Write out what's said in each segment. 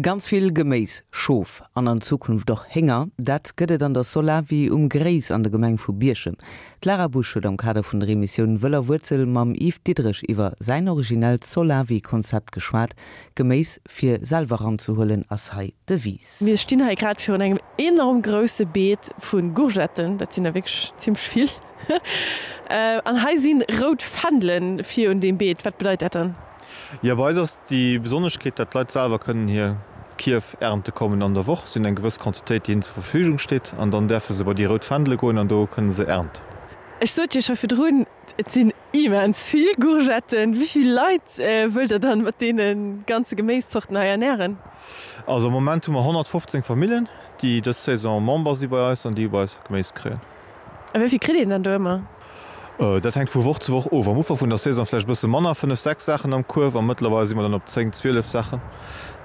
Ganz vill Geméis, Schof an an Zukunft och Hénger, dat gëtt et an der Solawi um Gréis an der Gemeng vu Bierchem. D'Lara Busch huet am Kader vun der Emissioun Wëll a Wuerzel mam Yves Diderich iwwer säin originellt Solawi-Konzept geschwat. Geméis fir selwer eranzehuelen ass hei d'Devise. Mir stinn hei grad virun engem enorm grousse Beet vu Gourgetten, dat sinn der wierklech zimmlech vill. An hei si rout Fändelen vir un deem Beet. Wat bedeit dat dann? Jo, bei eis ass déi Besonneschkeet, dat d'Leit selwer kënnen hir Kierf ernte kommen an der Woch. Si hunn eng gewëss Quantitéit, déi hinnen zur Verfügung steet, an dann däerfe se bei déi rout Fändele goen an do kënne se ernten. Ech sot jo scho virdrun, et sinn immens vill Gourgetten. Wéi vill Leit wëllt der dann mat deene ganze Geméiszorten hei ernären? Also am Moment hu mer 115 Familljen, déi dës Saison Member si bei eis an déi bei eis Geméis kréien. A wéi vill kritt een dann do ëmmer? Dat hänkt vu Woch zu Woch of. Am Ufank vun der Saison vläicht e bësse manner, 5, 6 Saachen am Kuerf, a mëttlerweil si mer dann op 10, 12 Saachen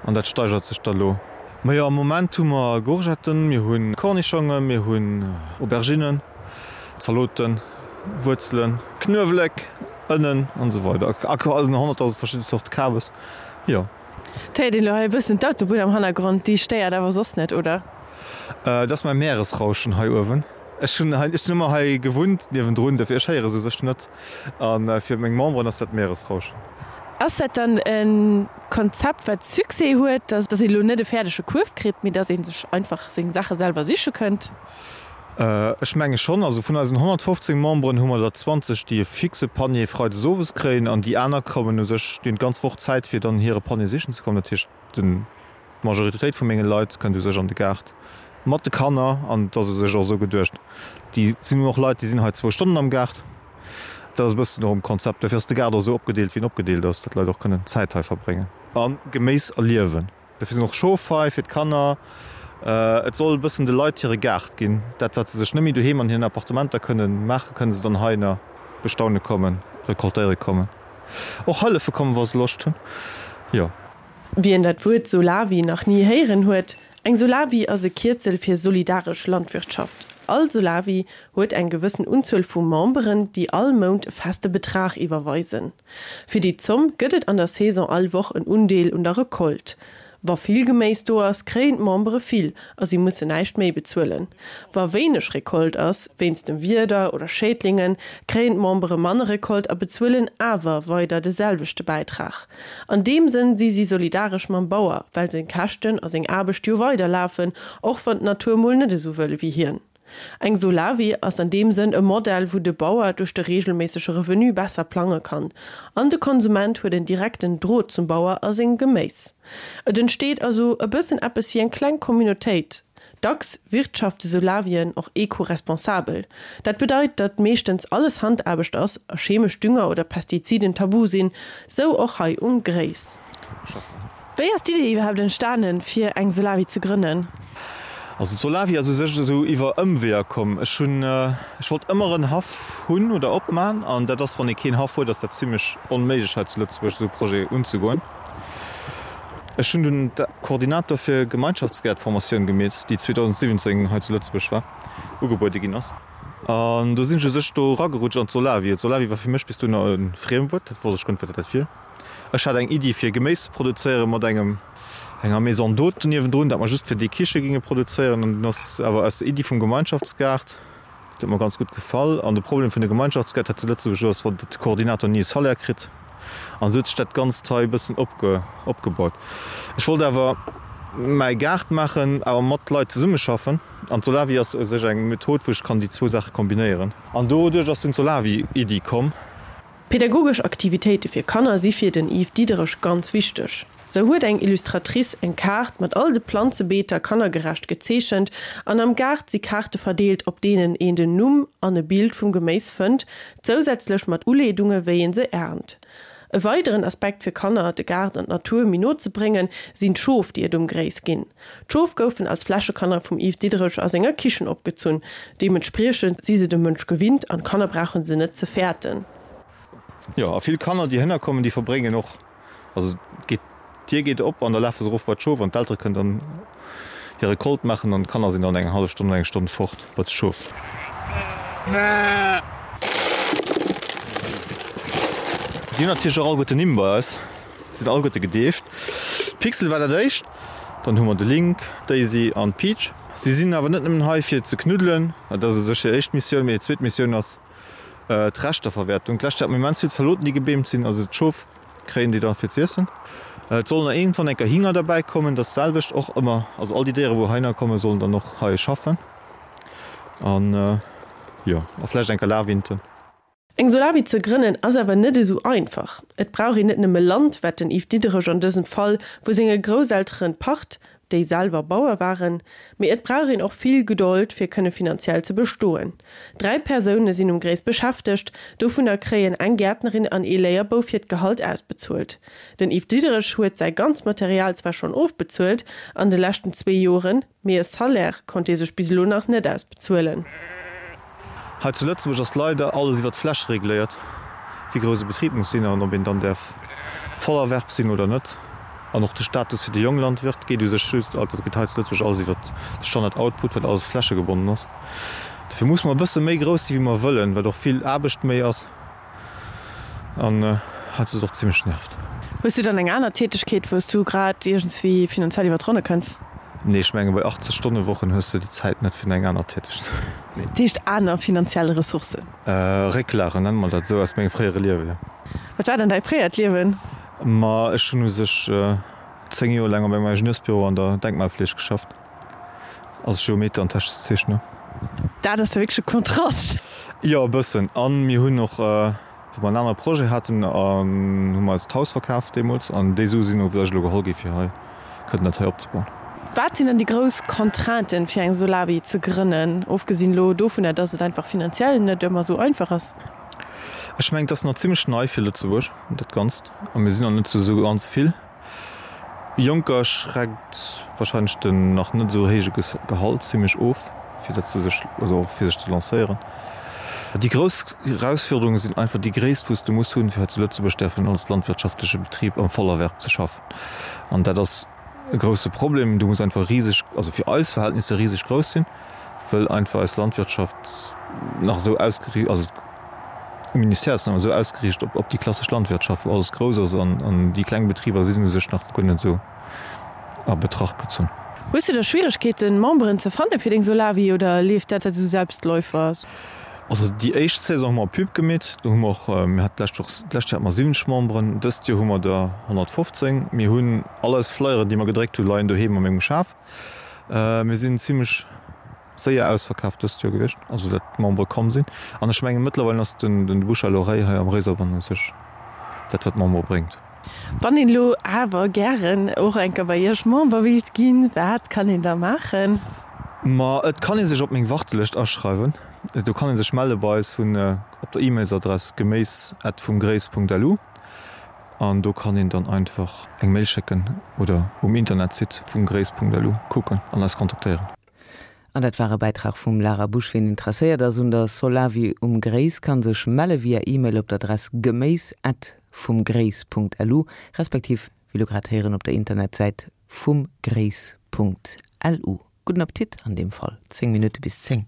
an dat steigert sech da lo. Majo, am Moment hu mer Gourgetten, mir hu Cornichongen, mir hunn Auberginnen, Zaloten, Wuerzelen, Knuewelek, Ënnen an esou weider a 100.000 verschidde Zorte Kabes, jo. Et héiert een elo hei e bëssen d'Autobunn am Hannergrond, déi stéiert awer soss net, oder? Dat ass mäi Meeresrauschen hei uewen. Ech hunn hei, ech sinn ëmmer hei gewunnt niewendrun, dofir ech héiere se u sech net. A fir meng Memberen ass dat Meeresrauschen. Ass dat dann e Konzept, wat Succès huet, dass een elo net e fäerdege Kuerf kritt, mee dass ee sech einfach seng Saache selwer siche kënnt? Ech menge schonn. Also vun eisen 115 Memberen hu mer der 20, déi e fixe Panier freides owes kréien an déi aner kommen u sech, déi hunn d'ganz Woch Zäit fir dann hire Panier sichen ze kommen. Dat heescht, den. D'Majoritéit vu menge Leit kënnt u sech an de Gaart mat de Kanner an et ass u sech och esou geduecht. Déi sinn och Leit, déi sinn hei zwou Stonnen am Gaart. Dat ass e bëssen och um Konzept. Dofir ass de Gaart och esou opgedeelt, wéi en opgedeelt ass, datt d'Leit och kënnen Zäit hei verbréngen a Geméis erliewen. Dofir sinn och Schof hei fir d'Kanner. Et soll e bëssen de Leit hire Gaart ginn. Dat, wat se sech net méi doheem an hiren Appartementer kënnen maachen, kënne se dann heihinner bestaune kommen, recoltéiere kommen, och hëllefe kommen, wa se Loscht hunn. Jo. Wien dat Wuert Solawi nach ni héieren huet, Eng Solawi ass e Kierzel fir solidaresch Landwirtschaft. All Solawi huet eng gewëssen Unzuel vu Memberen, déi all Mount e feste Betrag iwwerweisen. Fir déi Zomm gëtt et an der Saison all Woch en Undeel un der Recolte. Wa vill Geméis do ass, kréien d'Membere vill a si mussen näischt méi bezuelen. Wa wéineg Recolte ass, wéinst dem Wieder oder Schädlingen, kréien d'Membere manner Recolte a bezuelen awer weider de selwechte Bäitrag. An deem Sënn si si solidaresch mam Bauer, well seng Käschten a seng Aarbecht jo weider lafen, och wann d'Natur mol net esou wëll ewéi hien. Eng Solawi ass an deem Sënn e Modell, wou de Bauer duerch de reegelméissege Revenu besser plange kann, an de Konsument huet en direkten Drot zum Bauer a sengem Geméis. Et entsteet also e bëssen eppes wéi eng kleng Communautéit. Dacks wirtschafte Solawien och eco-responsabel. Dat bedeit, datt meeschtens alles Handaarbecht ass a chemesch Dünger oder Pestiziden tabu sinn, sou och hei um Gréis. Wéi ass d'Idee iwwerhaapt entstanen, fir eng Solawi ze grënnen? Also d'Solawi ass u sech esou iwwer Ëmweeër komm. Ech hunn, ech wollt ëmmer en Haff hunn oder opman an dat ass, wann ee keen Haff huet, ass dat zimlech onméiglech hei zu Lëtzebuerg esou e Projet unzegoen. Ech hunn dunn d'Koordinator fir Gemeinschaftsgäertformatioun gemeet, déi 2017 hei zu Lëtzebuerg war, ugebuede ginn ass. An do sinn ech u sech do eragerutscht an d'Solawi. D'Solawi war fir mech bis dunner e Friemwuert, dat wosst ech guer net, wat dat wier. Ech hat eng Iddi fir Geméis ze produzéieren mat engem, enger Maison d'hôte niewendrun, dat mer just fir déi Kiche ginge produzéieren. An dunn ass awer aus der Iddi vum Gemeinschaftsgaart, dat huet mer ganz gutt gefall. An de Problem vun de Gemeinschaftsgäert hei zu Lëtzebuerg ass, wann de Koordinator ni e Salaire kritt. An esou huet sech dat Ganzt hei e bëssen opge, opgebaut. Ech wollt awer mäi Gaart maachen, awer mat Leit zesummeschaffen. An d'Solawi ass u sech eng Method, wou ech kann déi zwou Saache kombinéieren. An doduerch ass dunn d'Solawi-Iddi komm. Pädagogesch Aktivitéite fir Kanner si fir den Yves Diderich ganz wichteg. Sou huet eng Illustratrice eng Kaart mat all de Planzebeeter kannergerecht gezeechent an am Gaart si Kaarte verdeelt, op deenen een den Numm an e Bild vum Geméis fënnt, zousätzlech mat Uleedunge wéi een se ernt. E weideren Aspekt fir Kanner de Gaart an d'Natur méi no ze bréngen, sinn d'Schof déi et um Gréis ginn. D'Schof goufen als Fläschekanner vum Yves Diderich a senger Kichen opgezunn. Deementspriechend si se dem Mënsch gewinnt an d'Kanner brauche se net ze fäerten. Jo, a vill Kanner, déi hënner kommen, déi verbréngen och, also geet, d'Dier geet op an da lafe se erof bei d'Schof an d'Eltere kënnen dann hir Recolte maachen an d'Kanner sinn dann eng hallef Stonn oder eng Stonn fort bei d'Schof. Déi hunn natierlech och alleguerten Nimm bei eis, sinn alleguerte gedeeft. Pixel war dat éischt. Dann hu mer de Link, d'Daisy an d'Peach. Si sinn awer net nëmmen hei fir ze knuddelen, dat ass u sech hir éischt Missioun, mee hir zweet Missioun ass d'Reschterverwäertung. D'lescht Joer hat mer immens vill Zaloten déi gebeemt sinn, also d'Schof kréien déi da fir z'iessen. Et sollen nach iergendwann eng Kéier Hinger derbäi kommen, dat selwecht och ëmmer, also all déi Déiere wou heihinner kommen, sollen dann och hei schaffen an jo a vläicht eng Kéier Lawinten. Eng Solawi ze grënnen ass awer net esou einfach. Et brauch een net nëmme Land, wat den Yves Diderich an dësem Fall vu senge Grousselteren pacht, déi selwer Bauer waren, mee et brauch een och vill Gedold fir kënne finanziell ze bestoen. 3 Persoune sinn um Gréis beschäftegt, dovunner kréien eng Gäertnerin an ee Léierbouf hiert Gehalt ausbezuelt. Den Yves Diderich huet säi ganzt Material zwar schonn ofbezuelt an de leschten zwee Joren, Mee e Salaire konnt ee sech bis elo nach net ausbezuelen. Hei zu Lëtzebuerg ass leider alles iwwer d'Fläch regléiert, wéi grouss e Betrib muss sinn an ob een dann däerf Vollerwerb sinn oder net. An och de Status fir de Jonglandwirt geet u sech just, also geet hei zu Lëtzebuerg alles iwwer de Standard Output, well alles flächegebonnen ass. Dofir musse mer e bësse méi grouss si wéi mer wëllen, wat och vill Aarbecht méi ass. An hat se och zimlech nervt. Hues du dann eng aner Tätegkeet wous du grad iergendswéi finanziell iwwer d'Ronne kënns? Nee, ech menge bei 80 Stonne Wochen hues du déi Zäit net fir eng aner Tätegkeet. Dat heescht aner finanziell Ressourcen? Récklagen, nenne mer dat esou, aus mengem fréiere Liewen, jo. Wat war dann däi fréiert Liewen? Ma ech hunn u sech 10 Joer laang op engem Ingenieursbüro an der Denkmalfleeg geschafft. Als Geometer an technesche Zeechner. Dat ass jo wierklech e Kontrast. Jo, e bëssen. A mir hunn och, wou mer en anere Projet haten, hu mer eis d'Haus verkaf deemools. An déi Sue sinn och vläicht elo geholl gi fir hei kënnen dat hei opzebauen. Wat sinn dann déi grouss Contrainten, fir eng Solawi ze grënnen, ofgesinn elo dovunner, dass et einfach finanziell net ëmmer esou einfach ass? Ech mengen, et ass nach zimmlech nei fir Lëtzebuerg, dat Ganzt. A mir sinn nach net esou ganz vill. Jonker schreckt wahrscheinlech den nach net esou héije Gehalt zimlech of, fir dat se sech, also och fir sech ze lancéieren. Déi grouss Erausfuerderunge sinn einfach déi Gréisst wou s de muss hunn, fir hei zu Lëtzebuerg däerfen als landwirtschaftleche Betrib am Vollerwerb ze schaffen. An dat ass e grousse Problem. Du muss einfach riseg, also fir eis Verhältnisser riseg grouss sinn, wëll einfach eis Landwirtschaft nach esou ausgeriicht, also Um Ministère ass nach esou ausgeriicht op op déi klassesch Landwirtschaft, wou alles grouss ass an an déi kleng Betriber sinn u sech nach guer net esou a Betracht gezunn. Hues du da Schwieregkeeten Memberen ze fanne fir deng Solawi oder leeft dat esou Selbstläufer? Also déi éischt Saison hu mer Pub gemeet, do hu mer och, mir haten d'lescht Woch, d'lescht Joer hate mer 70 Memberen, dëst Joer hu mer der 115. Mir hunn all eis Flyeren déi mer gedréckt hu leien doheem a mengem Schaf. Mir sinn zimlech Séier ausverkaaft dëst Joer gewiescht, also dat d'Membere komm sinn. An ech mengen mëttlerweil ass den den Bouche à l'oreille hei am Réiserbann u sech dat wat d'Membere bréngt. Wann een elo awer gären och eng Kéier bei Iech Member wéilt ginn, wat kann een da maachen? Ma et kann ee sech op meng Wartelëscht aschreiwen. Do kann ee sech melle bei eis vun op der E-Mailsadress geméis at vumgréis.lu an do kann een dann einfach eng Mail schécken oder um Internetsite vumgréis.lu kucken an eis kontaktéieren. An dat war e Bäitrag vum Lara Busch. Wien interesséiert ass un der Solawi um Gréis, kann sech melle via E-Mail op d'Adress geméis at vumgréis Punkt lu, respektiv, wéi lo grad héieren, op der Internetsäit vumgréis Punkt lu. Gudden Appetit an deem Fall. 10 Minutte bis 10.